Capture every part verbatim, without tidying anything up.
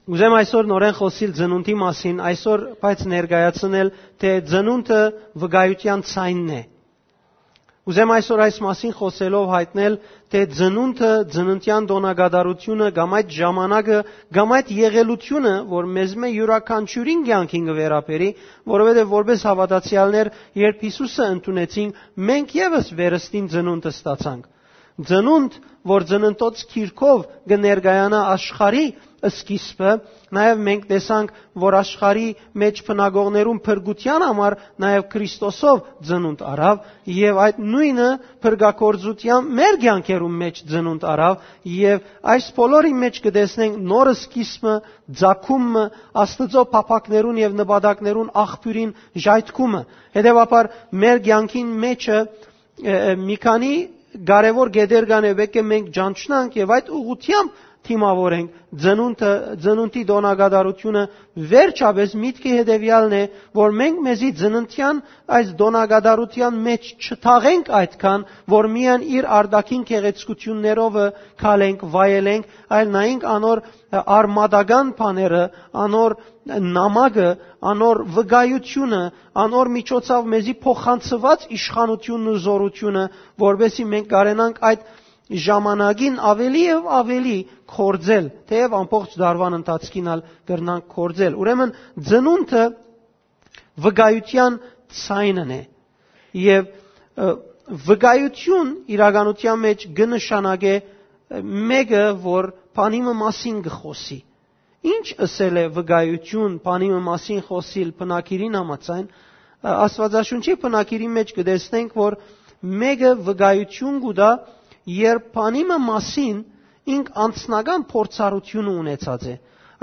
Ուզեմ այսօր նորէն խօսիլ ծնունդի մասին, այսօր բայց ներկայացնել, թէ ծնունդը վկայութեան ձայնն է։ Ուզեմ այսօր այս մասին խօսելով հայտնել, թէ ծնունդը, ծննդեան տօնակատարութիւնը կամ այդ ժամանակը, կամ այդ եղելութիւնը, որ մեզմէ իւրաքանչիւրին կեանքին կը վերաբերի, որովհետեւ որպէս հաւատացեալներ, երբ Յիսուսը ընդունեցինք, մենք եւս վերստին ծնունդ ստացանք։ Ծնունդ, որ ծննդոց գիրքով կը ներկայանայ աշխարհի սկիզբը, նաեւ մենք տեսանք, որ աշխարհի մէջ բնակողներուն փրկութեան համար նաեւ Քրիստոսով ծնունդ առաւ, եւ այդ նոյնը փրկագործութեան մեր կեանքերուն մէջ ծնունդ առաւ, եւ այս բոլորին մէջ կը տեսնենք նոր սկիզբը, ծագումը, Աստուծոյ փափաքներուն եւ նպատակներուն աղբիւրին ժայթքումը։ Հետեւաբար, մեր կեանքին մէջը, ը, ը, մի քանի կարեւոր կետեր կան, եւ պէտք է մենք ճանչնանք եւ այդ ուղղութեամբ դիմաւորենք ծնունդը, ծնունդի տօնակատարութիւնը, վերջապէս միտքը հետեւեալն է, որ մենք մեզի ծննդեան այս տօնակատարութեան մէջ չթաղենք այդքան, որ միայն իր արտաքին գեղեցկութիւններովը քալենք, վայելենք, այլ նայենք անոր արմատական բաները, անոր նամակը, անոր վկայութիւնը, անոր միջոցով մեզի փոխանցուած իշխանութիւնն ու զօրութիւնը, որպէսզի մենք կարենանք այդ ժամանակին ավելի եւ ավելի գործել, թէեւ ամբողջ դարուան ընթացքին ալ կրնանք գործել։ Ուրեմն, ծնունդը վկայութեան ձայնն է, եւ, ը, վկայութիւն իրականութեան մէջ կը նշանակէ, ը, մէկը, որ բանի մը մասին կը խօսի։ Ի՞նչ ըսել է վկայութիւն բանի մը մասին խօսիլ բնագիրին համաձայն։ Ը, Աստուածաշունչի բնագիրի մէջ կը տեսնենք, որ մէկը վկայութիւն կու տայ, երբ բանի մը մասին ինք անձնական փորձառութիւնը ունեցած է։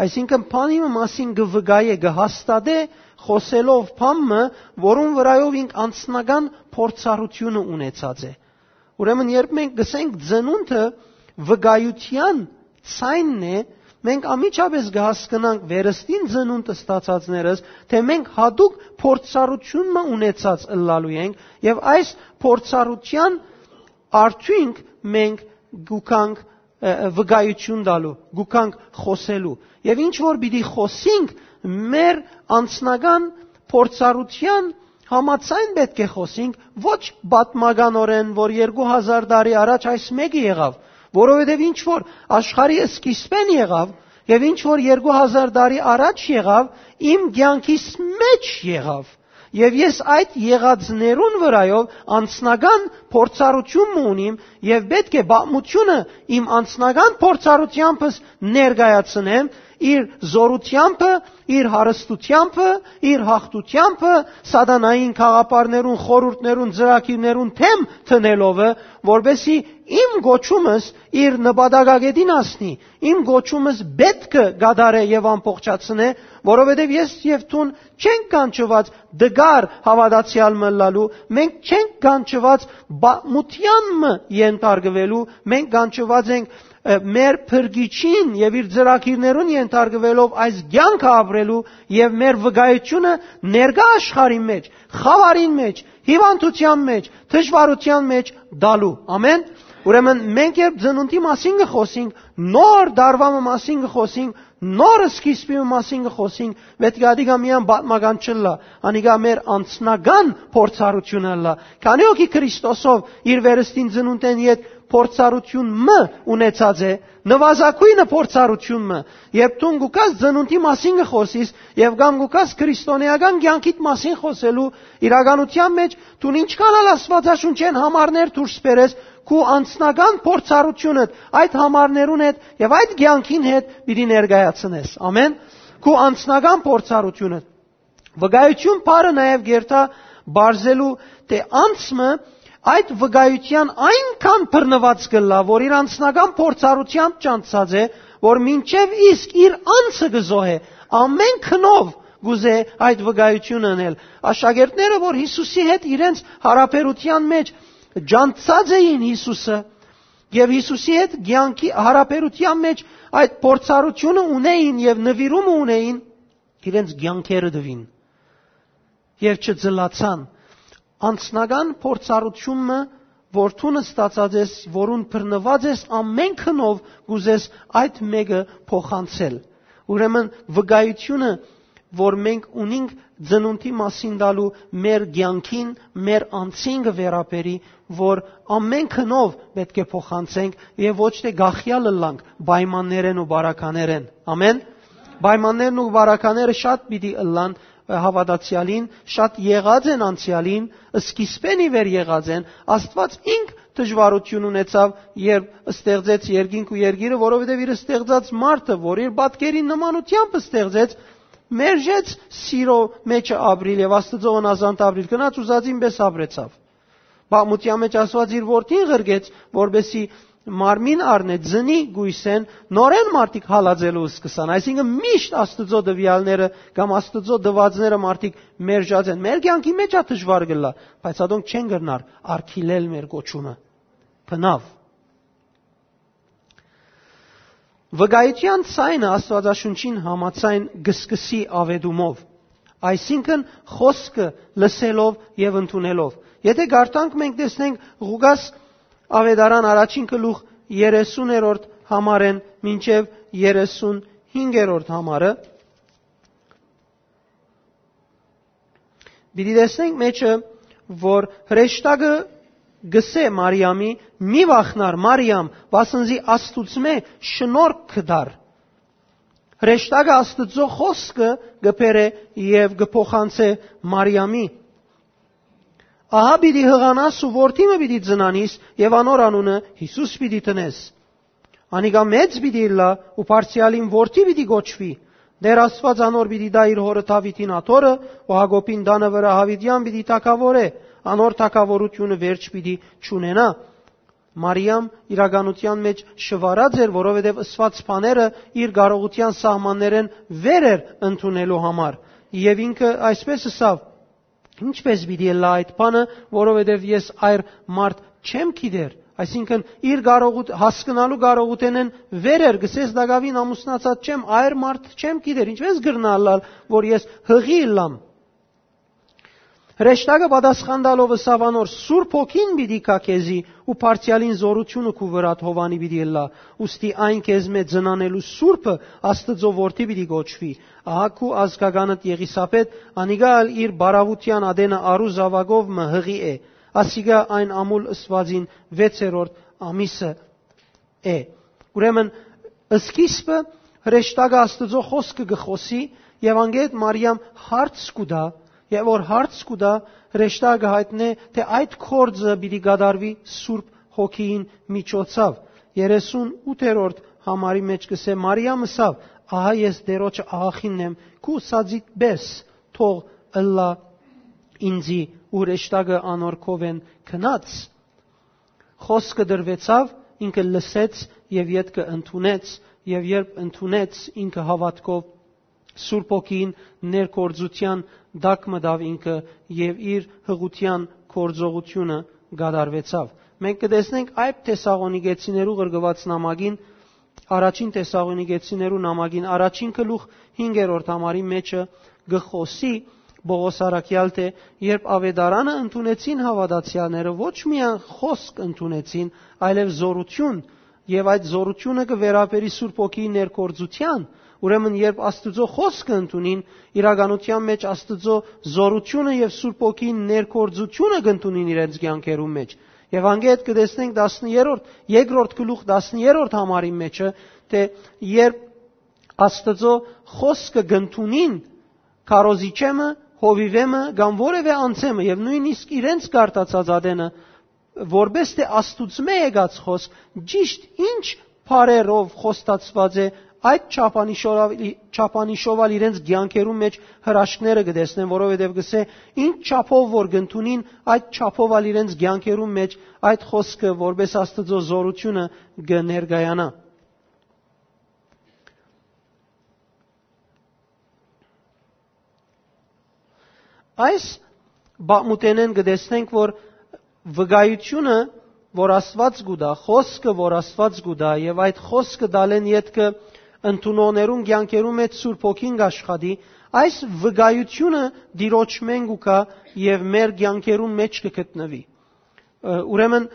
Այսինքն, բանի մը մասին կը վկայէ, կը հաստատէ, խօսելով բան մը, որուն վրայով ինք անձնական փորձառութիւնը ունեցած է։ Ուրեմն, երբ մենք կ'ըսենք ծնունդը վկայութեան ձայնն է, մենք անմիջապէս կը հասկնանք վերստին ծնունդ ստացածներս, թէ մենք յատուկ փորձառութիւն մը ունեցած ըլլալու ենք, եւ այս փորձառութեան արդիւնք մենք գուքանք, ը, ը, վկայութիւն տալու, գուքանք խօսելու։ Եւ ինչ որ պիտի խօսինք, մեր անձնական փորձառութեան համաձայն պէտք է խօսինք, ոչ պատմականօրէն, որ երկու հազար տարի առաջ այս մէկը եղաւ, որովհետեւ ինչ որ աշխարհի սկիզբէն եղաւ, եւ ինչ որ երկու հազար տարի առաջ եղաւ, իմ կեանքիս մէջ եղաւ։ Եւ ես այդ եղածներուն վրայով անձնական փորձառութիւն մը ունիմ, եւ պէտք է պատմութիւնը իմ անձնական փորձառութեամբս ներկայացնեմ, իր զօրութեամբը, իր հարստութեամբը, իր յաղթութեամբը, սատանային գաղափարներուն, խորհուրդներուն, ծրագիրներուն դէմ դնելովը, որպէսզի իմ կոչումս իր նպատակագետին հասնի, իմ կոչումս պէտք է կատարէ եւ ամբողջացնէ, որովհետեւ ես եւ դուն չենք կանչուած դգար հաւատացեալ մը ըլլալու, մենք չենք կանչուած պատմութեան մը ենթարկուելու, մենք կանչուած ենք, ը, մեր Փրկիչին եւ իր ծրագիրներուն ենթարկուելով այս կեանքը ապրելու եւ մեր վկայութիւնը ներկայ աշխարհին մէջ, խաւարին մէջ, հիւանդութեան մէջ, դժուարութեան մէջ տալու։ Ամեն։ Ուրեմն, մենք երբ ծնունդի մասին կը խօսենք, նոր դարուայ մը մասին կը խօսենք, նոր սկիզբի մը մասին կը խօսենք, պէտք է ատիկա միայն պատմական չըլլայ, անիկա մեր անձնական փորձառութիւնը ըլլայ։ Քանի՞ հոգի Քրիստոսով իր վերստին ծնունդէն յետ փորձառութիւն մը ունեցած է, նուազագոյնը փորձառութիւն մը, երբ դուն գուքաս ծնունդի մասին կը խօսիս եւ կամ գուքաս քրիստոնեական կեանքիդ մասին խօսելու իրականութեան մէջ, դուն ինչքան ալ Աստուածաշունչէն համարներ դուրս բերես, քու անձնական փորձառութիւնդ այդ համարներուն հետ եւ այդ կեանքին հետ պիտի ներկայացնես։ Ամեն։ Քու անձնական փորձառութիւնը։ Վկայութիւն բառը նաեւ կերթայ պարզելու, թէ անձ մը այդ վկայութեան այնքան բռնուած կ'ըլլայ, որ իր անձնական փորձառութեամբ ճանչցած է, որ մինչեւ իսկ իր անձը կը զոհէ, ամեն գնով կ'ուզէ այդ վկայութիւնը ընել։ Աշակերտները, որ Յիսուսի հետ իրենց յարաբերութեան մէջ ճանչցած էին Յիսուսը, եւ Յիսուսի հետ կեանքի յարաբերութեան մէջ այդ փորձառութիւնը ունէին եւ նուիրումը ունէին, իրենց կեանքերը տուին եւ չծլացան։ Անձնական փորձառութիւնը, որ դուն ստացած ես, որուն բռնուած ես, ամեն գնով կ'ուզես այդ մէկը փոխանցել։ Ուրեմն վկայությունը, որ մենք ունինք ծնունդի մասին տալու մեր կեանքին, մեր անձին կը վերաբերի, որ ամեն գնով պէտք է փոխանցենք եւ ոչ թէ գախեալ ըլլանք պայմաններէն ու բարականերէն։ Ամեն։ Պայմաններն ու բարակաները շատ պիտի ըլլան, ը, հաւատացեալին, շատ եղած են անցեալին, սկիզբէն ի վեր եղած են։ Աստուած ինք դժուարութիւն ունեցաւ, երբ ստեղծեց երկինք ու երկիրը, որովհետեւ իր ստեղծած մարդը, որ իր պատկերին նմանությամբ ստեղծեց, մերժեց սիրո մեջը ապրիլ եւ Աստուծոյ հնազանդ ապրիլ, գնաց ուզածին պէս ապրեցաւ։ Պատմութեան մէջ Աստուած իր որդին ղրկեց, որպեսզի մարմին առնէ, ծնի կոյսէն, նորէն մարդիկ հալածելու սկսան։ Այսինքն միշտ Աստուծոյ տուեալները կամ Աստուծոյ տուածները մարդիկ մերժած են։ Մեր կեանքի մէջ ա դժուար կ'ըլլայ, բայց ատոնք չեն կրնար արգիլել մեր կոչումը։ Բնաւ։ Վկայութեան ձայնը Աստուածաշունչին համաձայն կը սկսի աւետումով, այսինքն՝ խօսքը լսելով եւ ընդունելով։ Եթէ կարդանք, մենք տեսնենք Ղուկաս Աւետարան առաջին գլուխ երեսուներորդ համարէն մինչեւ երեսունհինգերորդ համարը, պիտի տեսնենք մեջը, որ հրեշտակը կ'ըսէ Մարիամի. «Մի վախնար, Մարիամ, վասն զի Աստուծմէ շնորհք կը տար»։ Հրեշտակը Աստուծոյ խօսքը կը բերէ եւ կը փոխանցէ Մարիամի. «Ահա պիտի յղանաս ու որդի մը պիտի ծնանիս եւ անոր անունը Յիսուս պիտի դնես։ Անիկա մեծ պիտի ըլլայ ու Բարձրեալին որդի պիտի կոչուի։ Տէր Աստուած անոր պիտի տայ իր հօրը Դաւիթին աթոռը ու Յակոբին տանը վրայ Դաւիթեան պիտի թագաւորէ, անոր թագաւորութիւնը վերջ պիտի չունենայ»։ Մարիամ իրականութեան մէջ շուարած էր, որովհետեւ ըսուած բաները իր կարողութեան սահմաններէն վեր էր ընդունելու համար։ Եւ ինքը այսպէս ըսաւ. «Ինչպէս պիտի ըլլայ այդ բանը, որովհետեւ ես այր մարդ չեմ գիտեր»։ Այսինքն՝ իր կարողութ-, հասկնալու կարողութենէն վեր էր, կ'ըսէ. «Ես տակաւին ամուսնացած չեմ, այր մարդ չեմ գիտեր, ինչպէս կրնայ ըլլալ, որ ես յղի ըլլամ»։ Հրեշտակը պատասխան տալով ըսաւ անոր. «Սուրբ Հոգին պիտի գայ քեզի ու Բարձրեալին զօրութիւնը քու վրադ Յովհաննի պիտի ըլլայ, ուստի այն քեզմէ ծնանելու Սուրբը Աստուծոյ որդի պիտի կոչուի։ Ահա քու ազգականդ Եղիսաբէթ, անիկա ալ իր բարաւութեան ատենը առու զաւակով մը յղի է, ասիկա այն ամուլ ըսուածին վեցերորդ ամիսը է»։ Ուրեմն, սկիզբը հրեշտակը Աստուծոյ խօսքը կը խօսի եւ անգետ Մարիամ հարց կու տայ, եւ որ հարց կու տայ, հրեշտակը յայտնէ, թէ այդ գործը պիտի կատարուի Սուրբ Հոգիին միջոցով։ Երեսունութերորդ համարի մէջ կ'ըսէ. «Մարիամ ըսաւ. "Ահա ես Տէրոջը աղախինն եմ, քու ըսածիդ պէս թող ըլլայ ինծի"», ու հրեշտակը անոր քովէն գնաց։ Խօսքը տրուեցաւ, ինքը լսեց եւ ետքը ընդունեց, եւ երբ ընդունեց, ինքը հաւատքով Սուրբ Հոգին ներգործութեան տակ մտաւ ինքը եւ իր յղութեան գործողութիւնը կատարուեցաւ։ Մենք կը տեսնենք այդ Թեսաղոնիկեցիներու ղրկուած նամակին, առաջին Թեսաղոնիկեցիներու նամակին առաջին գլուխ հինգերորդ համարի մէջը կը խօսի Պողոս առաքեալ, թէ երբ Աւետարանը ընդունեցին հաւատացեալները, ոչ միայն խօսք ընդունեցին, այլեւ զօրութիւն, եւ այդ զօրութիւնը կը վերաբերի Սուրբ Հոգիի ներգործութեան։ Ուրեմն, երբ Աստուծոյ խօսքը ընդունին, իրականութեան մէջ Աստուծոյ զօրութիւնը եւ Սուրբ Հոգիին ներգործութիւնը կ'ընդունին իրենց կեանքերուն մէջ։ Եւ անգետ կը տեսնենք տասներորդ, երկրորդ գլուխ տասներորդ համարի մէջը, թէ երբ Աստուծոյ խօսքը կ'ընդունին քարոզիչէ մը, հովիւէ մը կամ որեւէ անձէ մը, եւ նոյնիսկ իրենց կարտացած ատենը, որպէս թէ Աստուծմէ եկած խօսք, ճիշտ ինչ բառերով խոստացուած է, այդ չափանիշով, չափանիշով ալ իրենց կեանքերուն մէջ հրաշքները կը տեսնեն, որովհետեւ կ'ըսէ. «Ինչ չափով որ կ'ընդունին, այդ չափով ալ իրենց կեանքերուն մէջ այդ խօսքը որպէս Աստուծոյ զօրութիւնը կը ներկայանայ»։ Այս պատմութենէն կը տեսնենք, որ վկայութիւնը, որ Աստուած կու տայ, խօսքը, որ Աստուած կու տայ, եւ այդ խօսքը տալէն ետքը ընդունողներուն կեանքերուն մէջ Սուրբ Հոգին կ'աշխատի, այս վկայութիւնը Տիրոջմէն կու գայ եւ մեր կեանքերուն մէջ կը գտնուի։ Ը, ուրեմն,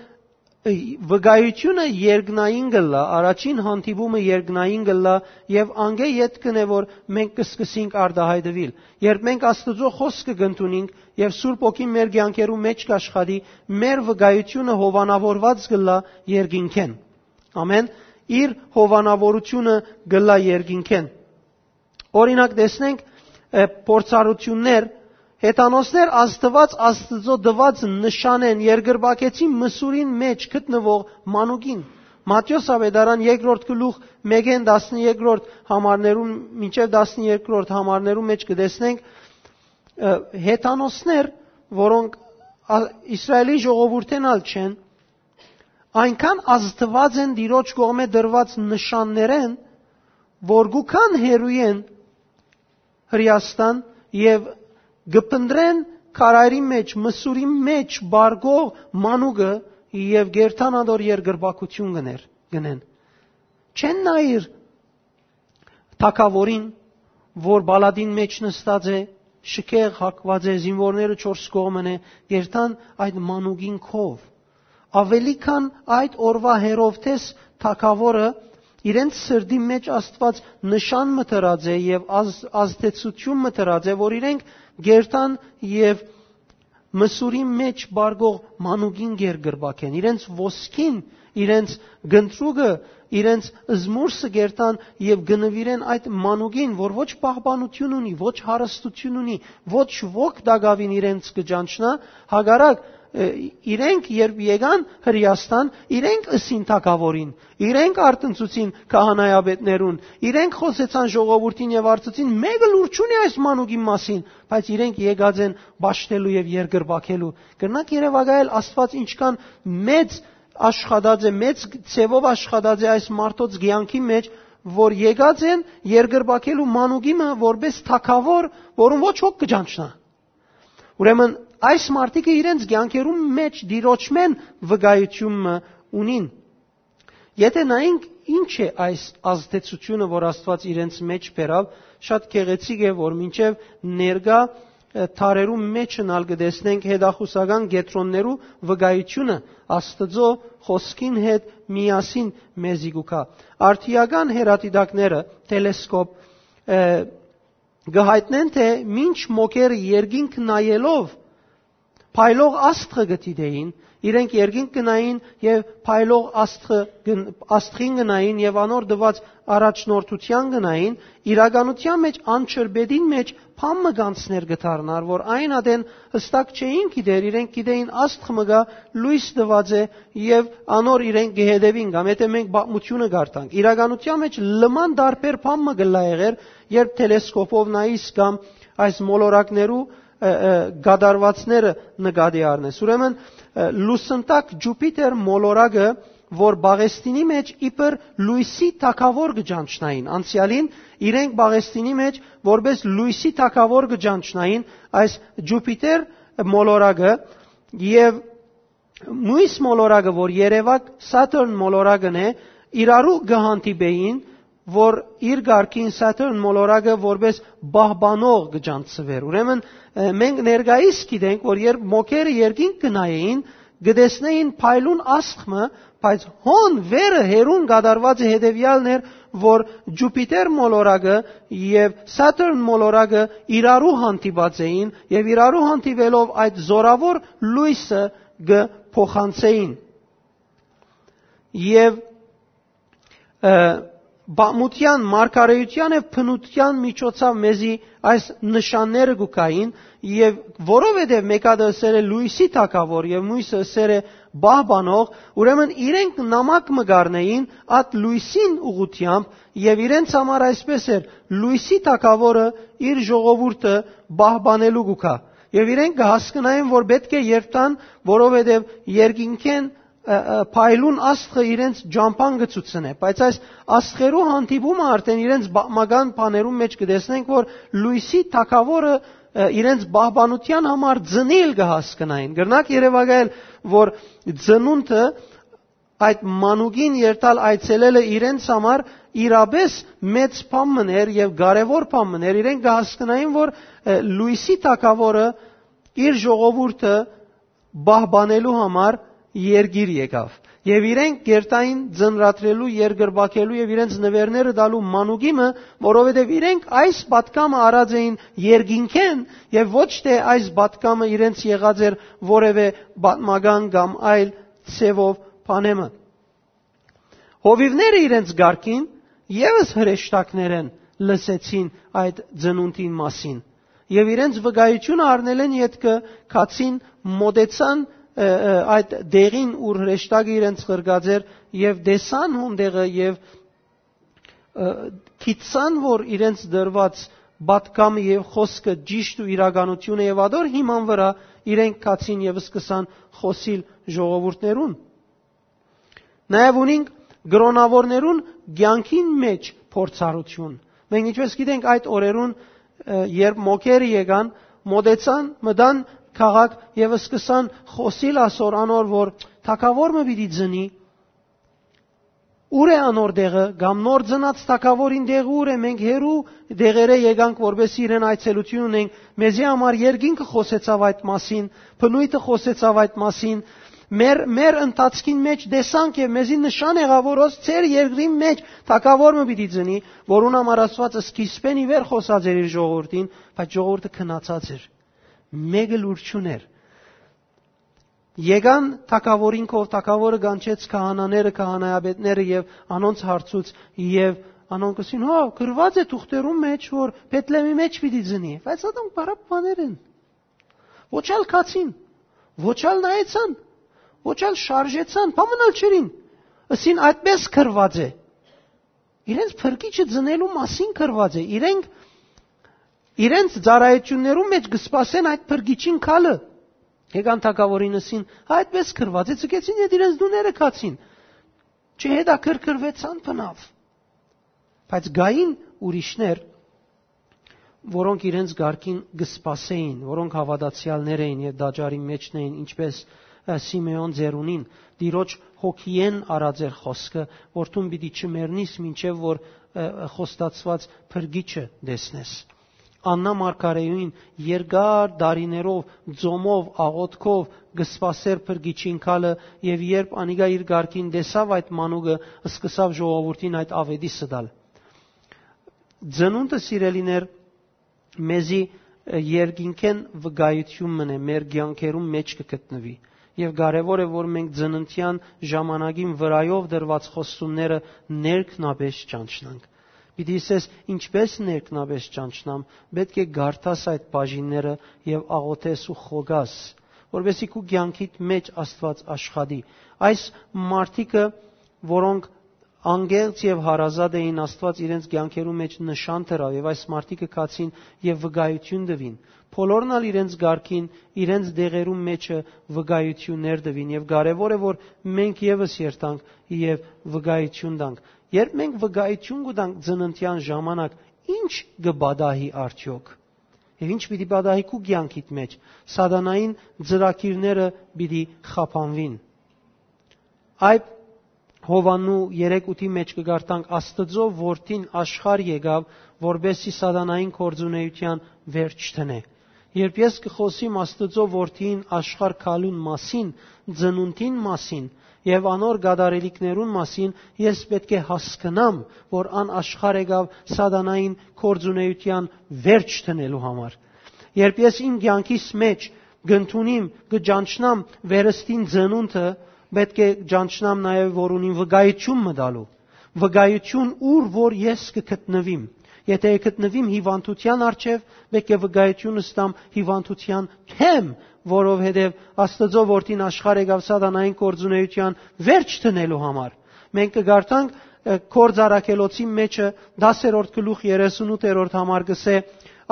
վկայութիւնը երկնային կ'ըլլայ, առաջին հանդիպումը երկնային կ'ըլլայ, եւ անկէ ետք կ'ընէ որ մենք կը սկսենք արտայայտուիլ։ Երբ մենք Աստուծոյ խօսքը կ'ընդունենք եւ Սուրբ Հոգին մեր կեանքերու մէջ կ'աշխատի, մեր վկայութիւնը հովանաւորուած կ'ըլլայ երկինքէն։ Ամեն, իր հովանաւորութիւնը կ'ըլլայ երկինքէն։ Օրինակ, տեսնենք փորձառութիւններ, հեթանոսներ Աստուած, Աստուծոյ տուած նշանէն երկրպագեցին Մսուրին մէջ գտնուող մանուկին։ Մատթէոս աւետարան երկրորդ գլուխ մէկէն տասներկրորդ համարներուն մինչեւ տասներկրորդ համարներուն մէջ կը տեսնենք հեթանոսներ, որոնք Իսրայէլի ժողովուրդէն ալ չեն, այնքան ազդուած են Տիրոջ կողմէ տրուած նշաններէն, որ կու գան հեռուէն Հրեաստան եւ կը փնտռեն քարայրի մէջ, Մսուրի մէջ պառկող մանուկը եւ կ'երթան ատոր երկրպագութիւն կ'ընեն։ Չեն նայիր թագաւորին, որ պալատին մէջ նստած է, շքեղ հագուած է, զինուորները չորս կողմն է, կ'երթան այդ մանուկին քով։ Աւելի քան այդ օրուայ Հերովդէս թագաւորը իրենց սրտի մէջ Աստուած նշան մը դրած է եւ ազդեցութիւն մը դրած է, որ իրենք կ'երթան եւ Մսուրի մէջ պառկող մանուկին երկրպագեն, իրենց ոսկին, իրենց կնտրուկը, իրենց զմուրսը կ'երթան եւ կը նուիրեն այդ մանուկին, որ ոչ պահպանութիւն ունի, ոչ հարստութիւն ունի, ոչ ոք տակաւին իրենց կը ճանչնայ, հակառակ, իրենք երբ եկան Հրեաստան, իրենք ըսին թագաւորին, իրենք արթնցուցին քահանայապետներուն, իրենք խօսեցան ժողովուրդին եւ արձուցին, մէկը լուր չունի այս մանուկին մասին, բայց իրենք եկած են պաշտելու եւ երկրպագելու։ Կրնաք երեւակայել Աստուած ինչքան մեծ աշխատած է, մեծ ձեւով աշխատած է այս մարդոց կեանքի մէջ, որ եկած են երկրպագելու մանուկի մը որպես թագաւոր, որուն ոչ ոք կը ճանչնայ։ Ուրեմն այս մարդիկը իրենց կեանքերուն մէջ Տիրոջմէն վկայութիւն մը ունին։ Եթէ նայենք ինչ է այս ազդեցութիւնը, որ Աստուած իրենց մէջ բերաւ, շատ գեղեցիկ է, որ մինչեւ ներկայ դարերուն մէջն ալ կը տեսնենք հետախուսական կեդրոններու վկայութիւնը Աստուծոյ խօսքին հետ միասին մեզի կու գայ։ Արդիական հեռադիտակները, տելեսկոպ, կը յայտնեն, թէ մինչ մոգերը երկինք նայելով փայլող աստղը կը դիտէին, իրենք երկինք կը նային եւ փայլող աստղը կը, աստղին կը նային եւ անոր տուած առաջնորդութեան կը նային, իրականութեան մէջ անջրպետին մէջ բան մը կանցներ կը դառնար, որ այն ատեն հստակ չէին գիտեր, իրենք գիտէին աստղ մը կայ, լոյս տուած է եւ անոր իրենք կը հետեւին, կամ եթէ մենք պատմութիւնը կարդանք, իրականութեան մէջ լման տարբեր բան մը կը լայ եղեր, երբ տելեսկոպով նայիս կամ այս մոլորակներու կատարուածները նկատի առնես։ Ուրեմն լուսնտակ Ջուպիտեր մոլորակը, որ Պաղեստինի մէջ իբր լոյսի թագաւոր կը ճանչնային, անցեալին իրենք Պաղեստինի մէջ որպես լոյսի թագաւոր կը ճանչնային այս Ջուպիտեր մոլորակը, եւ մոյս մոլորակը, որ երեւակ Սաթըրն մոլորակն է, իրարու կը հանդիպէին, որ իր կարգին Սաթըրն մոլորակը որպես պահպանող կը ճանչցուէր։ Ուրեմն մենք ներկայիս գիտենք, որ երբ մոգերը երկինք կը նայէին, կը տեսնէին փայլուն աստղ մը, բայց հոն վերը հեռուն կատարուածը հետեւեալն էր, որ Ջուպիտեր մոլորակը եւ Սաթըրն մոլորակը իրարու հանդիպած էին եւ իրարու հանդիպելով այդ զորաւոր լոյսը կը փոխանցէին։ Եւ պատմութեան, մարգարէութեան եւ բնութեան միջոցաւ մեզի այս նշանները կու գային, եւ որովհետեւ մէկը ըսեր է լոյսի թագաւոր եւ մոյսը ըսեր է պահպանող, ուրեմն իրենք նամակ մը կ'առնէին այդ լոյսին ուղղութեամբ եւ իրենց համար այսպես էր. լոյսի թագաւորը իր ժողովուրդը պահպանելու կու գայ։ Եւ իրենք կը հասկնային, որ պէտք է երթան, որովհետեւ երկինքէն փայլուն աստղը իրենց ճամբան կը ցուցնէ, բայց այս աստղերու հանդիպումը արդեն իրենց պատմական բաներուն մէջ կը տեսնենք, որ լոյսի թագաւորը իրենց պահպանութեան համար ծնիլ կը հասկնային։ Կրնակ երեւակայել, որ ծնունդը այդ մանուկին երթալ այցելելը իրենց համար իրապես մեծ բան մն էր եւ կարեւոր բան մն էր։ Իրենք կը հասկնային, որ լոյսի թագաւորը իր ժողովուրդը պահպանելու համար երկիր եկաւ։ Եւ իրենք կերտային ծնրադրելու, երկրպագելու եւ իրենց նուէրները տալու մանուկի մը, որովհետեւ իրենք այս պատկամը առած էին երկինքէն, եւ ոչ թե այս պատկամը իրենց եղած էր որեւէ պատմական կամ այլ ձեւով բանեմը։ Հովիւները իրենց կարգին եւս հրեշտակներէն լսեցին այդ ծնունդին մասին, եւ իրենց վկայութիւնը առնելէն ետքը գացին, մոտեցան, ը, ը, այդ դեղին, ուր հրեշտակը իրենց ղրկած էր, եւ տեսան հոն տեղը, եւ, ը, գիտցան, որ իրենց դրուած պատկամը եւ խօսքը ճիշտ ու իրականությունը, եւ ատոր հիման վրայ իրենք գացին եւ սկսան խօսիլ ժողովուրդներուն։ Նաեւ ունինք կրոնաւորներուն կեանքին մէջ փորձառութիւն։ Մենք ինչպես գիտենք, այդ օրերուն, ը, երբ մոգերը եկան, մոտեցան, մտան քաղաք եւ սկսան խօսիլ ասոր անոր, որ թագաւոր մը պիտի ծնի, ո՞ւր է անոր տեղը, կամ նոր ծնած թագաւորին տեղը ո՞ւր է, մենք հեռու տեղերէ եկանք, որպեսզի իրեն այցելութիւն ունենք, մեզի համար երկինքը խօսեցաւ այդ մասին, բնոյթը խօսեցաւ այդ մասին, մեր, մեր ընթացքին մէջ տեսանք եւ մեզի նշան եղաւ, որ հոս ձեր երկրին մէջ թագաւոր մը պիտի ծնի, որուն համար Աստուած սկիզբէն ի վեր խօսած էր իր ժողովուրդին, բայց ժողովուրդը քնացած էր։ Մեկը լուր չունէր։ Եկան թագաւորին քով, թագաւորը կանչեց քահանաները, քահանայապետները եւ անոնց հարցուց, եւ անոնք ըսին. «Հո, գրուած է թուղթերուն մէջ, որ Բեթլեմի մէջ պիտի ծնի»։ Բայց ատոնք պարապ բաներ են։ Ոչ ալ գացին, ոչ ալ նայեցան, ոչ ալ շարժեցան, բան մնալ չերին։ Ըսին. «Այդպես գրուած է»։ Իրենց փրկիչը ծնելու մասին գրուած է։ Իրենք իրենց ծառայություններուն մէջ կը սպասեն այդ փրկիչին գալը։ Եկան թագաւորին, ըսին. «Այդպես գրուած է», ցկեցին եւ իրենց տուները գացին։ Չհետաքրքրուեցան բնաւ։ Բայց կային ուրիշներ, որոնք իրենց կարգին կը սպասէին, որոնք հաւատացեալներ էին եւ տաճարին մէջն էին, ինչպես, ը, Սիմէոն ծերունին, Տիրոջ հոգիէն առած էր խօսքը, որ դուն պիտի չմեռնիս, մինչեւ որ, ը, խոստացուած փրկիչը տեսնես։ Աննա մարգարեին երկար տարիներով, ծոմով, աղոթքով կը սպասէր փրկիչին գալը, եւ երբ անիկա իր կարգին տեսաւ այդ մանուկը, սկսաւ ժողովուրդին այդ աւետիսը տալ։ Ծնունդը, սիրելիներ, մեզի, ը, երկինքէն վկայութիւն մըն է, մեր կեանքերուն մէջ կը գտնուի։ Եւ կարեւոր է, որ մենք ծննդեան ժամանակին վրայով դրուած խոստումները ներքնաբէս ճանչնանք։ Պիտի ըսես. «Ինչպես ներքնաբէս ճանչնամ»։ Պէտք է կարդաս այդ բաժինները եւ աղոթես ու խոկաս, որպեսզի քու կեանքիդ մէջ Աստուած աշխատի։ Այս մարդիկը, որոնք անկեղծ եւ հարազատ էին, Աստուած իրենց կեանքերու մէջ նշան դրաւ, եւ այս մարդիկը գացին եւ վկայութիւն տուին։ Բոլորն ալ իրենց կարգին, իրենց դեղերուն մէջը վկայութիւններ տուին, եւ կարեւոր է, որ մենք եւս երթանք եւ վկայութիւն տանք։ Երբ մենք վկայութիւն կու տանք ծննդեան ժամանակ, ի՞նչ կը պատահի արդեօք։ Եւ ի՞նչ պիտի պատահի քու կեանքիդ մէջ։ Սատանային ծրագիրները պիտի խափանուին։ Այդ Յովհաննու երեք ութի մէջ կը կարդանք. «Աստուծոյ Որդին աշխարհ եկաւ, որպեսզի սատանային գործունեութեան վերջ դնէ»։ Երբ ես կը խօսիմ Աստուծոյ Որդին աշխարհ գալուն մասին, ծնունդին մասին եւ անոր կատարելիքներուն մասին, ես պէտք է հասկնամ, որ ան աշխարհ եկաւ սատանային գործունեութեան վերջ դնելու համար։ Երբ ես իմ կեանքիս մէջ կ'ընդունիմ, կը ճանչնամ վերստին ծնունդը, պէտք է ճանչնամ նաեւ, որ ունիմ վկայութիւն մը տալու։ Վկայութիւն, ուր որ ես կը գտնուիմ։ Եթէ կը գտնուիմ հիւանդութեան առջեւ, պէտք է վկայութիւն ստամ հիւանդութեան դէմ, որովհետեւ Աստուծոյ Որդին աշխարհ եկաւ սատանային գործունեութեան վերջ դնելու համար։ Մենք կը կարդանք, ը, Գործ Առաքելոցին մէջը, դասերորդ գլուխ, երեսունութերորդ համար կ'ըսէ.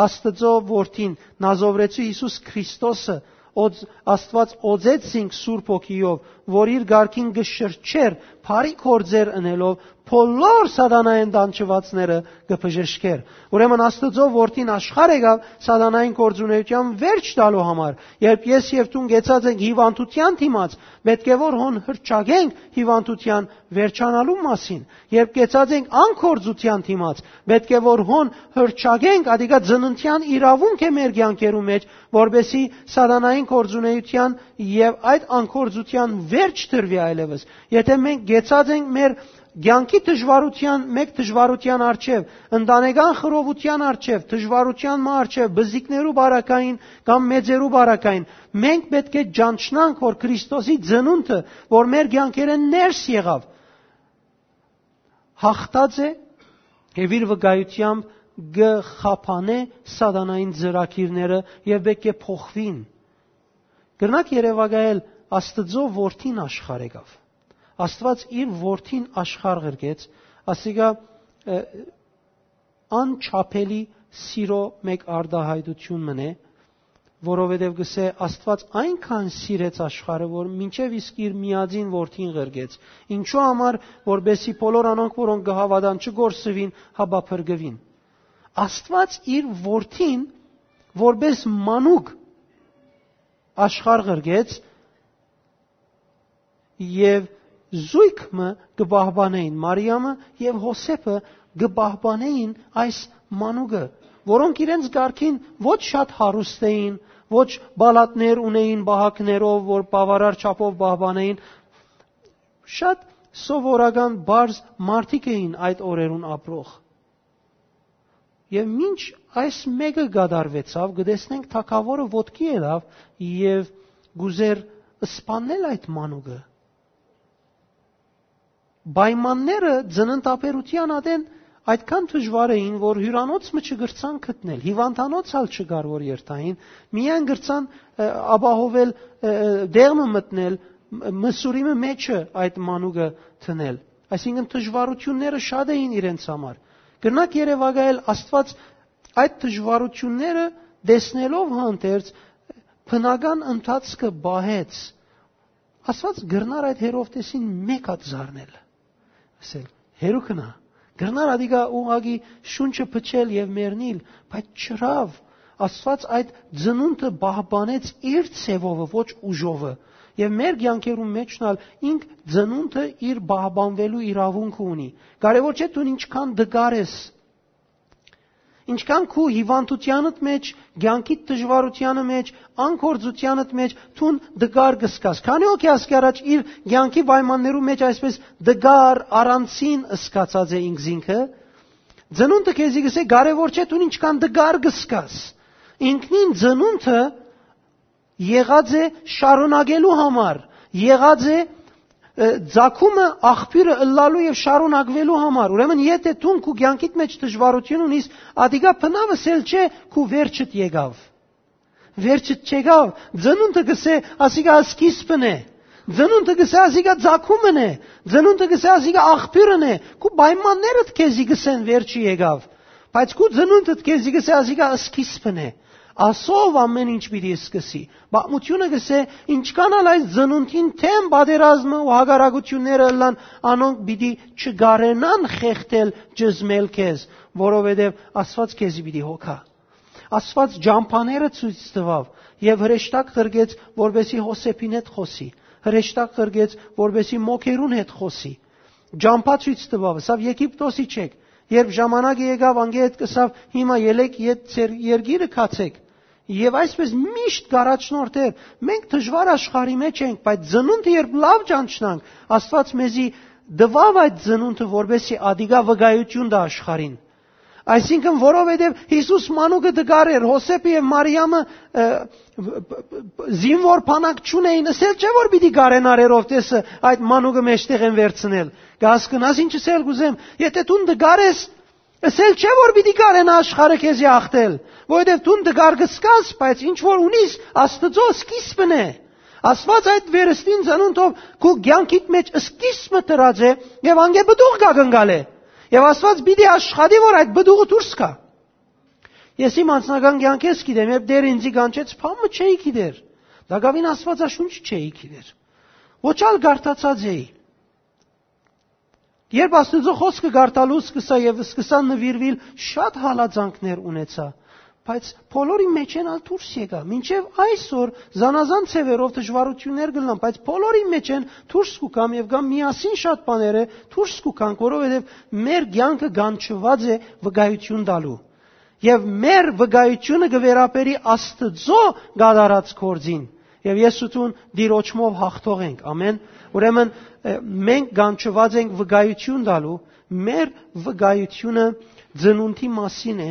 «Աստուծոյ Որդին, Նազովրեցի Յիսուս Քրիստոսը, օծ-, Աստուած օծեց զինք Սուրբ Հոգիով, որ իր կարգին կը շրջէր, բարի գործեր ընելով, բոլոր սատանայէն տանջուածները կը բժշկէր։ Ուրեմն Աստուծոյ որդին աշխարհ եկաւ սատանային գործունէութեան վերջ տալու համար։ Երբ ես եւ դուն կեցած ենք հիւանդութեան դիմաց, պէտք է որ հոն հրճագենք հիւանդութեան վերջանալու մասին։ Երբ կեցած ենք անգործութեան դիմաց, պէտք է որ հոն հրճագենք, ադիկա ծննդեան իրաւունք է մեր կեանքերու մեջ, որպեսզի սատանային գործունէութեան եւ այդ անգործութեան վերջ տրուի այլեւս։ Եթէ մենք կեցած ենք մեր կեանքի դժուարութեան, մէկ դժուարութեան առջեւ, ընտանեկան խռովութեան առջեւ, դժուարութեան մը առջեւ, բզիկներու բարակային կամ մեծերու բարակային, մենք պէտք է ճանչնանք, որ Քրիստոսի ծնունդը, որ մեր կեանքերէն ներս եղաւ, հաղթած է եւ իր վկայութեամբ կը խափանէ սատանային ծրագիրները եւ պէտք է փոխուին։ Կրնակ երեւակայել Աստուծոյ որդին աշխարհ եկաւ։ Աստուած իր որդին աշխարհ ղրկեց, ասիկա, ը, անչափելի սիրո մէկ արտահայտություն մնէ, որովհետեւ կսէ Աստուած այնքան սիրեց աշխարհը, որ մինչեւ իսկ իր միածին որդին ղրկեց։ Ինչու համար, որպեսզի բոլոր անոնք, որոնք կը հաւատան, չկորսուին, հապա փրկուին։ Աստուած իր որդին որպէս մանուկ աշխարհ ղրկեց, եւ զոյգ մը կը պահպանէին, Մարիամը եւ Յովսէփը կը պահպանէին այս մանուկը, որոնք իրենց կարգին ոչ շատ հարուստ էին, ոչ պալատներ ունէին պահակներով, որ բաւարար չափով պահպանէին, շատ սովորական պարզ մարդիկ էին այդ օրերուն ապրող։ Եւ մինչ այս մէկը կատարուեցաւ, կը տեսնենք թագաւորը ոտքի ելաւ եւ կ'ուզէր սպաննել այդ մանուկը։ Պայմանները ծննդաբերութեան ատեն այդքան դժուար էին, որ հիւրանոց մը չկրցան գտնել, հիւանդանոց ալ չկար, որ երթային, միայն կրցան, ը, ապահովել, ը, ը, դեղ մը մտնել, մ-, մսուրի մը մեջը այդ մանուկը դնել։ Այսինքն դժուարութիւնները շատ էին իրենց համար։ Կրնակ երեւակայել Աստուած այդ դժուարութիւնները տեսնելով հանդերձ բնական ընթացքը պահեց։ Աստուած կրնար այդ Հերովտեսին մէկ հատ զարնել, ասել. «Հեռու գնա»։ Կրնար ադիկա ուղղակի շունչը փչել եւ մեռնիլ, բայց չըրաւ։ Աստուած այդ ծնունդը պահպանեց իր ձևովը, ոչ ուժովը։ Եւ մեր կեանքերուն մէջն ալ ինք ծնունդը իր պահպանուելու իրաւունքը ունի։ Կարեւոր չէ դուն ինչքան տկար ես, ինչքան քու հիւանդութեանդ մէջ, կեանքիդ դժուարութեանը մէջ, անգործութեանդ մէջ դուն տկար կը զգաս։ Քանի՞ հոգի ասկի առաջ իր կեանքի պայմաններու մէջ այսպես տկար, առանձին զգացած է ինքզինքը։ Ծնունդը քեզի կ'ըսէ, կարեւոր չէ դուն ինչքան տկար կը զգաս։ Ինքնին ծնունդը եղած է շարունակելու համար, եղած է, ը, ծագումը, աղբիւրը ըլլալու եւ շարունակուելու համար։ Ուրեմն, եթէ դուն քու կեանքիդ մէջ դժուարութիւն ունիս, ադիկա բնաւ ըսել չէ, քու վերջդ եկաւ։ Վերջդ չեկաւ, ծնունդը կ'ըսէ, ասիկա սկիզբն է։ Ծնունդը կ'ըսէ, ասիկա ծագումն է։ Ծնունդը կ'ըսէ, ասիկա աղբիւրն է։ Քու պայմաններդ քեզի կ'ըսեն, վերջը եկաւ։ Բայց քու ծնունդդ քեզի կ'ըսէ, ասիկա սկիզբն է։ Ասով ամէն ինչ պիտի սկսի։ Պատմութիւնը կ'ըսէ, ինչքան ալ այս ծնունդին դէմ պատերազմը ու հակառակութիւնները ըլլան, անոնք պիտի չկարենան խեղդել, ճզմել քեզ, որովհետեւ Աստուած քեզի պիտի հոգայ։ Աստուած ճամբաները ցոյց տուաւ եւ հրեշտակ ղրկեց, որպեսզի Յովսէփին հետ խօսի, հրեշտակ ղրկեց, որպեսզի մոգերուն հետ խօսի։ Ճամբայ ցոյց տուաւ, ըսաւ. «Եգիպտոսի չեք»։ Երբ ժամանակը եկաւ, անկէ հետ կ'ըսաւ. «Հիմա ելէք եւ ձեր երկիրը գացէք»։ Եւ այսպես միշտ կ'առաջնորդէր։ Մենք դժուար աշխարհի մէջ ենք, բայց ծնունդը երբ լաւ ճանչնանք, Աստուած մեզի տուաւ այդ ծնունդը, որպեսզի ադիկա վկայութիւն տայ աշխարհին։ Այսինքն, որովհետեւ Յիսուս մանուկը տկար էր, Յովսէփը եւ Մարիամը, ը, զինուոր բանակ չունէին, ըսել չէ՞ որ պիտի կարենար Հերովտեսը այդ մանուկը մեջտեղէն վերցնել։ Կ'հասկնաս ինչ ըսել կ'ուզեմ, եթէ դուն տկար ես, ըսել չէ՞ որ պիտի կարենա աշխարհը քեզի ախտել, որովհետեւ դուն տկար կ'զգաս, բայց ինչ որ ունիս, Աստուծոյ սկիզբն է։ Աստուած այդ վերստին ծնունդով քու կեանքիդ մէջ սկիզբը դրած է եւ անկէ պտուղ կ'ակնկալէ։ Եւ Աստուած պիտի աշխատի, որ այդ պտուղը դուրս գայ։ Ես իմ անձնական կեանքէս գիտեմ, երբ Տէրը ինծի կանչեց, բան մը չէի գիտեր։ Տակաւին Աստուածաշունչ չէի գիտեր։ Ոչ ալ կարդացած էի։ Երբ Աստուծոյ խօսքը կարդալու սկսայ եւ սկսայ նուիրուիլ, շատ հալածանքներ ունեցայ։ Բայց բոլորին մէջէն ալ դուրս եկայ։ Մինչեւ այսօր զանազան ձեւերով դժուարութիւններ կ'ըլլան, բայց բոլորին մէջէն դուրս կու գամ եւ կամ միասին շատ բաները դուրս կու գանք, որովհետեւ մեր կեանքը կանչուած է վկայութիւն տալու։ Եւ մեր վկայութիւնը կը վերաբերի Աստուծոյ կատարած գործին։ Եւ ես ու դուն Տիրոջմով հաղթող ենք։ Ամեն։ Ուրեմն, ը, մենք կանչուած ենք վկայութիւն տալու, մեր վկայութիւնը ծնունդի մասին է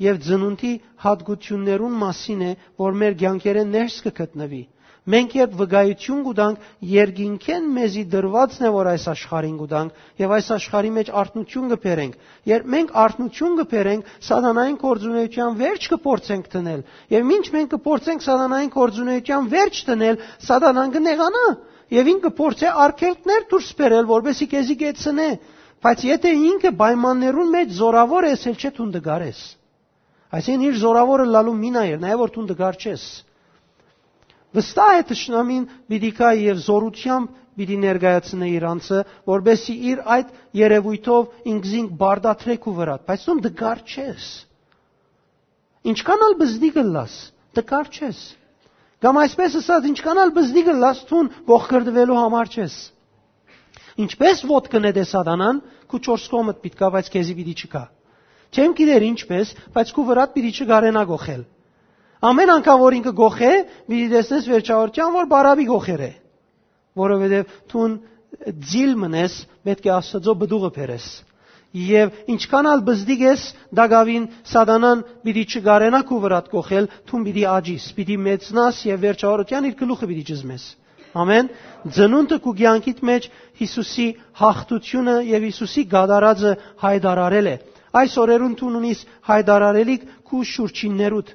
եւ ծնունդի յատկութիւններուն մասին է, որ մեր կեանքերէն ներս կը գտնուի։ Մենք երբ վկայութիւն կու տանք, երկինքէն մեզի տրուածն է, որ այս աշխարհին կու տանք, եւ այս աշխարհի մէջ արթնութիւն կը բերենք։ Երբ մենք արթնութիւն կը բերենք, սատանային գործունեութեան վերջ կը փորձենք դնել։ Եւ մինչ մենք կը փորձենք սատանային գործունեութեան վերջ դնել, սատանան կը նեղանայ եւ ինք կը փորձէ արգելքներ դուրս բերել, որպեսզի քեզի կեցնէ։ Բայց եթէ ինքը պայմաններուն մէջ զորաւոր է, ըսել չէ դուն տկար ես։ Այսինքն՝ իր զորաւորը լալու մին ա, եւ նաեւ որ դուն տկար չես։ Վստահ է, թշնամին պիտի գայ եւ զօրութեամբ պիտի ներկայացնէ իր անձը, որպեսզի իր այդ երեւոյթով ինքզինք բարդատրէ քու վրադ, բայց դուն տկար չես։ Ինչքան ալ բզդի կ'ըլլաս, տկար չես։ Կամ այսպես ըսած, ինչքան ալ բզդի կ'ըլլաս, դուն կոխկրտուելու համար չես։ Ինչպես ոտքը նետէ սատանան, քու չորս կողմդ պիտի գայ, բայց քեզի պիտի չգայ։ Չեմ գիտեր ինչպես, բայց քու վրադ պիտի չկարենայ կոխել։ Ամեն անգամ որ ինքը կոխէ, պիտի տեսնես վերջավորութեան, որ բարապի կոխեր է, որովհետեւ դուն ձիլ մնես, պէտք է Աստուծոյ պտուղը բերես։ Եւ ինչքան ալ բզդիկ ես, տակաւին սատանան պիտի չկարենայ քու վրադ կոխել, դուն պիտի աճիս, պիտի մեծնաս եւ վերջավորութեան իր գլուխը պիտի ճզմես։ Ամեն։ Ծնունդը քու կեանքիդ մէջ Յիսուսի յաղթութիւնը եւ Յիսուսի կատարածը յայտարարել է։ Այս օրերուն դուն ունիս յայտարարելիք քու շուրջիններուդ։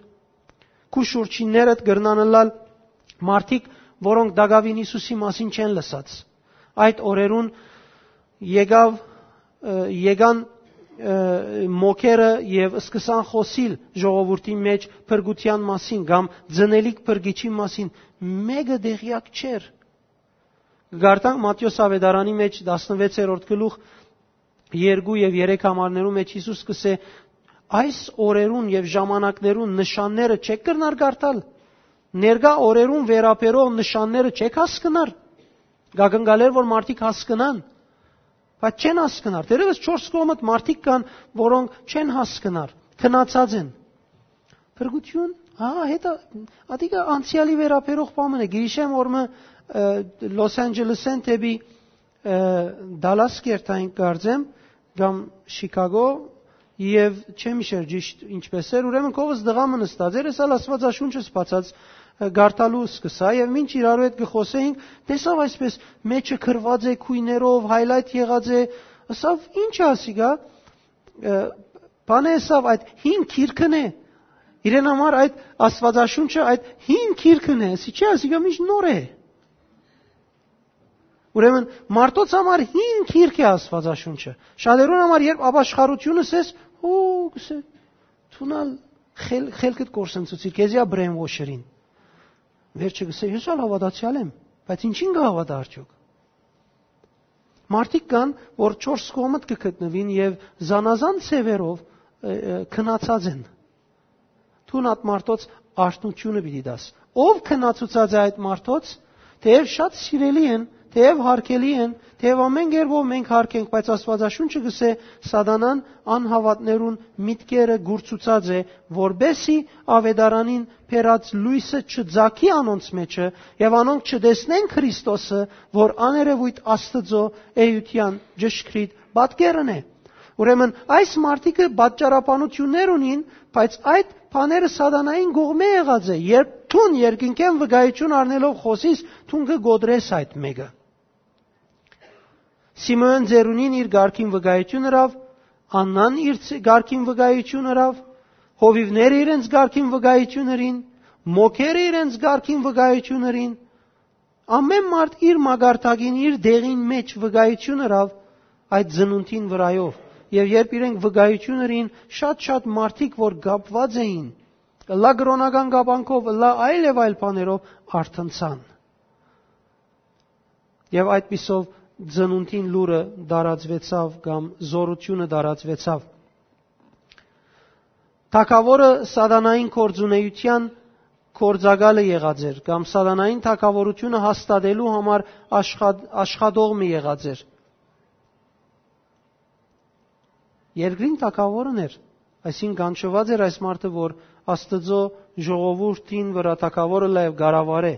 Քու շուրջիններդ կրնան ըլլալ մարդիկ, որոնք տակաւին Յիսուսի մասին չեն լսած։ Այդ օրերուն եկաւ, ը, եկան, ը, մոքերը եւ սկսան խօսիլ ժողովուրդի մէջ փրկութեան մասին կամ ծնելիք փրկիչի մասին։ Մէկը տեղեակ չէր։ Կկարդանք Մատթէոս աւետարանի մէջ տասնվեցերորդ գլուխ երկու եւ երեք համարներու մէջ Յիսուս կ'ըսէ. «Այս օրերուն եւ ժամանակներուն նշանները չեք կրնար կարդալ։ Ներկայ օրերուն վերաբերող նշանները չեք հասկնար»։ Կակնկալեր որ մարդիկ հասկնան, բայց չեն հասկնար։ Դերևս չորս կողմդ մարդիկ կան, որոնք չեն հասկնար, քնացած են։ Փրկութիւն, հա, հետա, ատիկա անցեալի վերաբերող բան մը է։ Գիրիշեմ որ մը, ը, Լոս Անջելեսէն դէպի, ը, Դալաս կերտային կարծեմ, կամ Շիքագո, եւ չեմ իշեր ճիշտ ինչպես էր, ուրեմն կովս դղա մը նստած էր, ես ալ Աստուածաշունչս բացած, ը, գարթալու սկսա, եւ մինչ իրարու հետ կը խոսեինք, տեսաւ այսպես մեջը գրված է քույներով, highlight եղած է, ասաւ. «Ինչ է ասիկա»։ Ը, բանը եսաւ այդ հին քիրքն է, իրեն համար այդ Աստուածաշունչը այդ հին քիրքն է, ասի չէ, ասիկա միշտ նոր է։ Ուրեմն մարդոց համար հին քիրք է Աստուածաշունչը։ Շատերուն համար երբ ապաշխարությունը սես, հո, գսե, դուն ալ խել-, խելքդ կորսնցուցիր, քեզի ա brainwash-երին։ Վերջը գսե, ես ալ հաւատացեալ եմ, բայց ինչին կը հաւատա արդյոք։ Մարդիկ կան, որ չորս կողմդ կը գտնուին եւ զանազան ձևերով, ը, ը, քնացած են։ Դուն այդ մարդոց արթնութիւնը պիտի տաս։ Ո՞վ քնացուցած է այդ մարդոց, թէեւ շատ սիրելի են, թէեւ հարգելի են, թէեւ ամեն կերպով մենք հարգենք, բայց Աստուածաշունչը գսե, սատանան անհաւատներուն միտքերը գուրցուցած է, որպեսի աւետարանին բերած լոյսը չծագի անոնց մէջը, եւ անոնք չտեսնեն Քրիստոսը, որ աներեւոյթ Աստուծոյ էութեան ճշգրիտ պատկերն է։ Ուրեմն այս մարդիկը պատճառաբանութիւններ ունին, բայց այդ բաները սատանային կողմէ եղած է։ Երբ դուն երկնքէն վկայութիւն առնելով խօսիս, դուն կը կոտրես այդ մէկը։ Սիմէոն ծերունին իր կարգին վկայութիւն ըրաւ, Աննան իր ց-, կարգին վկայութիւն ըրաւ, հովիւները իրենց կարգին վկայութիւն ըրին, մոքերը իրենց կարգին վկայութիւն ըրին, ամեն մարդ իր մակարդակին, իր տեղին մէջ վկայութիւն ըրաւ այդ ծնունդին վրայով։ Եւ երբ իրենք վկայութիւն ըրին, շատ-շատ մարդիկ, որ կապուած էին, ըլլայ կրօնական կապանքով, ըլլայ այլ եւ այլ բաներով, արթնցան։ Եւ այդպիսով ծնունդին լուրը տարածուեցաւ կամ զօրութիւնը տարածուեցաւ։ Թագաւորը սատանային գործունեութեան գործակալը եղած էր, կամ սատանային թագաւորութիւնը հաստատելու համար աշխատող մը եղած էր։ Երկրին թագաւորն էր, այսինքն՝ կանչուած էր այս մարդը, որ Աստուծոյ ժողովուրդին վրայ թագաւորը լայ կառավարէ։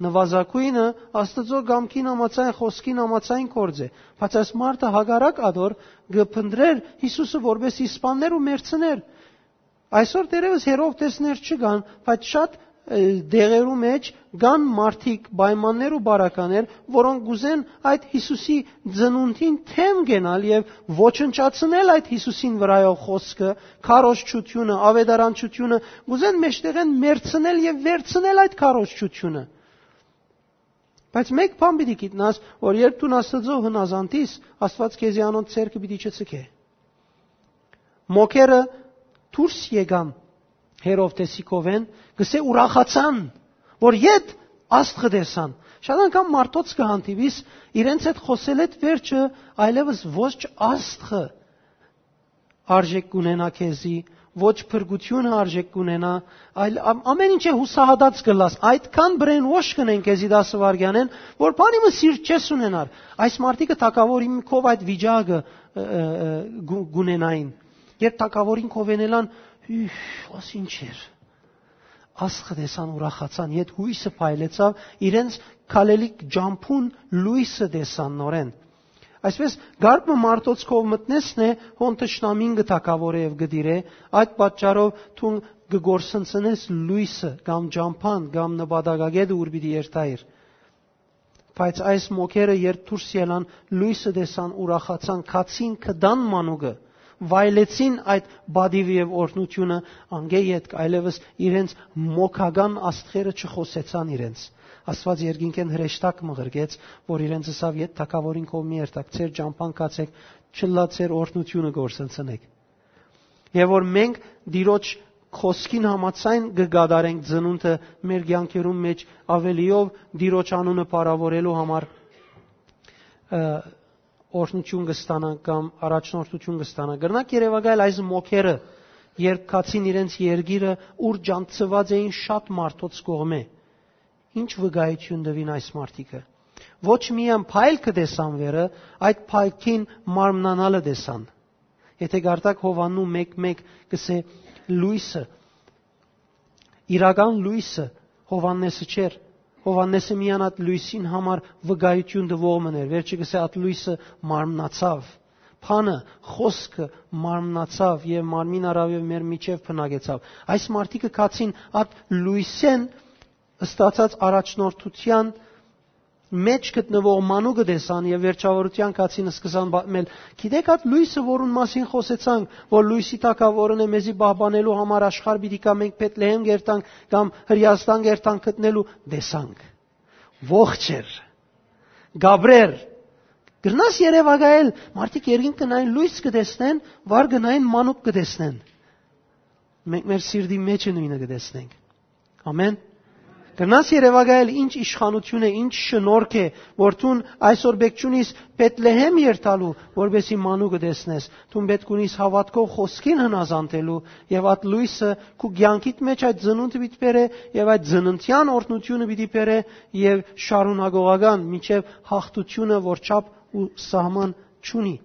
Նուազագոյնը Աստուծոյ կամքին համաձայն, խօսքին համաձայն գործ է, բայց այս մարդը հակառակ ադոր կը փնտռէր Յիսուսը, որպէս սպաններ ու մեռցներ։ Այսօր դեռեւս Հերովդեսներ չկան, բայց շատ դեղերու մէջ կան մարդիկ, պայմաններ ու բարականեր, որոնք կ'ուզեն այդ Յիսուսի ծնունդին դէմ կենալ եւ ոչնչացնել այդ Յիսուսին վրայով խօսքը, քարոզչութիւնը, աւետարանչութիւնը, կ'ուզեն մէջտեղէն մեռցնել եւ վերցնել այդ քարոզչութիւնը։ Բայց մէկ բան պիտի գիտնաս, որ երբ դուն Աստուծոյ հնազանդ ես, Աստուած քեզի անոնց ձեռքը պիտի չցկէ։ Մօքերը դուրս եկան Հերովդէսի քովէն, կ'ըսէ, ուրախացան, որ ետ աստղը տեսան։ Շատ անգամ մարդոց կը հանդիպիս, իրենց հետ խօսելէդ վերջը այլեւս ոչ աստղը արժեք կ'ունենայ քեզի, ոչ փրկութիւնը արժեք կ'ունենայ, այլ ամ-, ամէն ինչ է, յուսահատած կ'ըլլաս։ Այդքան brainwash կ'ընեն քեզի տասը վայրկեանէն, որ բանի մը սիրտ չես ունենար։ Այս մարդիկը թագաւորին քով այդ վիճակը, ը, ը, ը, կ'ու-, կ'ունենային։ Երբ թագաւորին քովէն ելան, հիւյ, աս ինչ էր։ Աստղը տեսան, ուրախացան, ետ յոյսը փայլեցաւ, իրենց քալելիք ճամբուն լոյսը տեսան նորէն։ Այսպէս, կարգ մը մարդոց քով մտնեսն է, հոն թշնամին կը թագաւորէ եւ կը տիրէ, այդ պատճառով դուն կը կորսնցնես լոյսը կամ ճամբան կամ նպատակագետը, ուր պիտի երթայիր։ Բայց այս մօքերը, երբ դուրս ելան, լոյսը տեսան, ուրախացան, գացին, գտան մանուկը, վայելեցին այդ պատիվը եւ օրհնութիւնը, անկէ ետք այլեւս իրենց մօքական աստղերը չխօսեցան իրենց։ Աստուած երկինքէն հրեշտակ մը ղրկեց, որ իրենց ըսաւ. «Ետ թագաւորին քով մի երթաք, ձեր ճամբան գացէք, չլա ձեր օրհնութիւնը կորսնցնէք»։ Եւ որ մենք Տիրոջ խօսքին համաձայն կը կատարենք ծնունդը մեր կեանքերուն մէջ, աւելիով Տիրոջ անունը փառաւորելու համար, ը, օրհնութիւն կը ստանանք կամ առաջնորդութիւն կը ստանանք։ Կրնակ երեւակայել այս մօքերը, երբ գացին իրենց երկիրը, ուր ջանցուած էին շատ մարդոց կողմէ, ինչ վկայութիւն տուին այս մարդիկը։ Ոչ միայն փայլքը տեսան վերը, այդ փայլքին մարմնանալը տեսան։ Եթե կարդաք Յովհաննու մեկ մէկ, կ'ըսէ. «Լոյսը, իրական լոյսը Յովհաննէսը չէր։ Յովհաննէսը միայն այդ լոյսին համար վկայութիւն տուող մըն էր։ Վերջը կ'ըսէ. այդ լոյսը մարմնացաւ»։ Բանը, խօսքը մարմնացաւ եւ մարմին առաւ եւ մեր միջեւ բնակեցաւ։ Այս մարդիկը գացին այդ լոյսէն ստացած առաջնորդութեան մէջ գտնուող մանուկը տեսան եւ վերջաւորութեան գացին, սկսան պատմել. «Գիտեք, այդ լոյսը, որուն մասին խօսեցանք, որ լոյսի թագաւորն է, մեզի պահպանելու համար աշխարհ պիտի գայ, մենք Բեթլեհեմ կ'երթանք կամ Հրեաստան կ'երթանք գտնելու, տեսանք»։ Ողջ էր, կ'ապրէր։ Կրնաս երեւակայել, մարդիկ երկինք կը նային, լոյս կը տեսնեն, վար կը նային, մանուկ կը տեսնեն։ Մենք մեր սիրտի մէջը նոյնը կը տեսնենք։ Ամեն։ Կրնաս երեւակայել, ինչ իշխանութիւն է, ինչ շնորհք է, որ դուն այսօր պէտք չունիս Բեթլեհեմ երթալու, որպեսզի մանուկը տեսնես։ Դուն պէտք ունիս հաւատքով խօսքին հնազանդելու, եւ այդ լոյսը քու կեանքիդ մէջ այդ ծնունդը պիտի բերէ, եւ այդ ծննդեան օրհնութիւնը պիտի բերէ, եւ շարունակողական մինչեւ յաղթութիւնը, որ չափ ու սահման չունի։